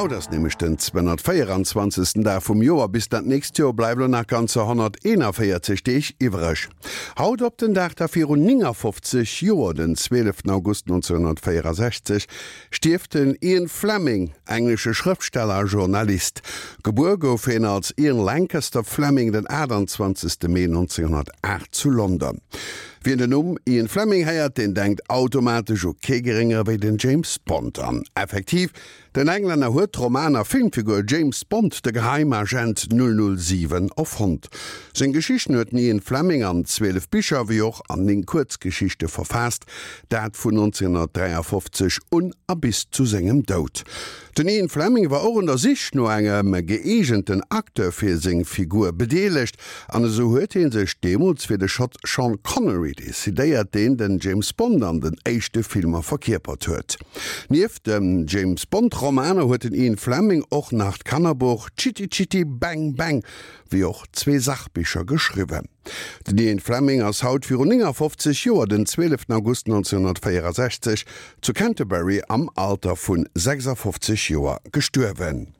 Haut ass nämlech den 224. Dag vum Joer. Bis dat nächst Joer bleiwe lo nach ganzer 141 Deeg iwwreg. Haut op den Dag da virun 59 Joer, den 12 August 1964, stierft den Ian Fleming, englesche Schrëftsteller a Journalist. Gebuer gouf hien als Ian Lancaster Fleming den 28. Mee 1908 zu London. Wien den Numm Ian Fleming héiert, deen denkt automatesch u kee geréngere wéi den James Bond. An effektiv, den Englänner huet d'Roman a Filmfigur James Bond, de Geheimagent 007, erfonnt. Seng Geschichten huet den Ian Fleming an 12 Bicher wéi och an 9 Kuerzgeschichte verfaasst, dat vun 1953 un a bis zu sengem Doud. Den Ian Fleming war och un der Sich no engem gëeegenten Acteur fir seng Figur bedeelegt, an esou huet hie sech deemools fir de Schott Sean Connery decidéiert, deen den James Bond an den éischte Filmer verkierpert huet. Nieft de James Bond Romaner huet den Ian Fleming och nach d'Kannerbuch Chitty Chitty Bang Bang wéi och zwee Sachbicher geschriwwen. Den Ian Fleming ass haut virun 59 Joer, den 12 August 1964, zu Canterbury am Alter vu 56 Joer gestuerwen.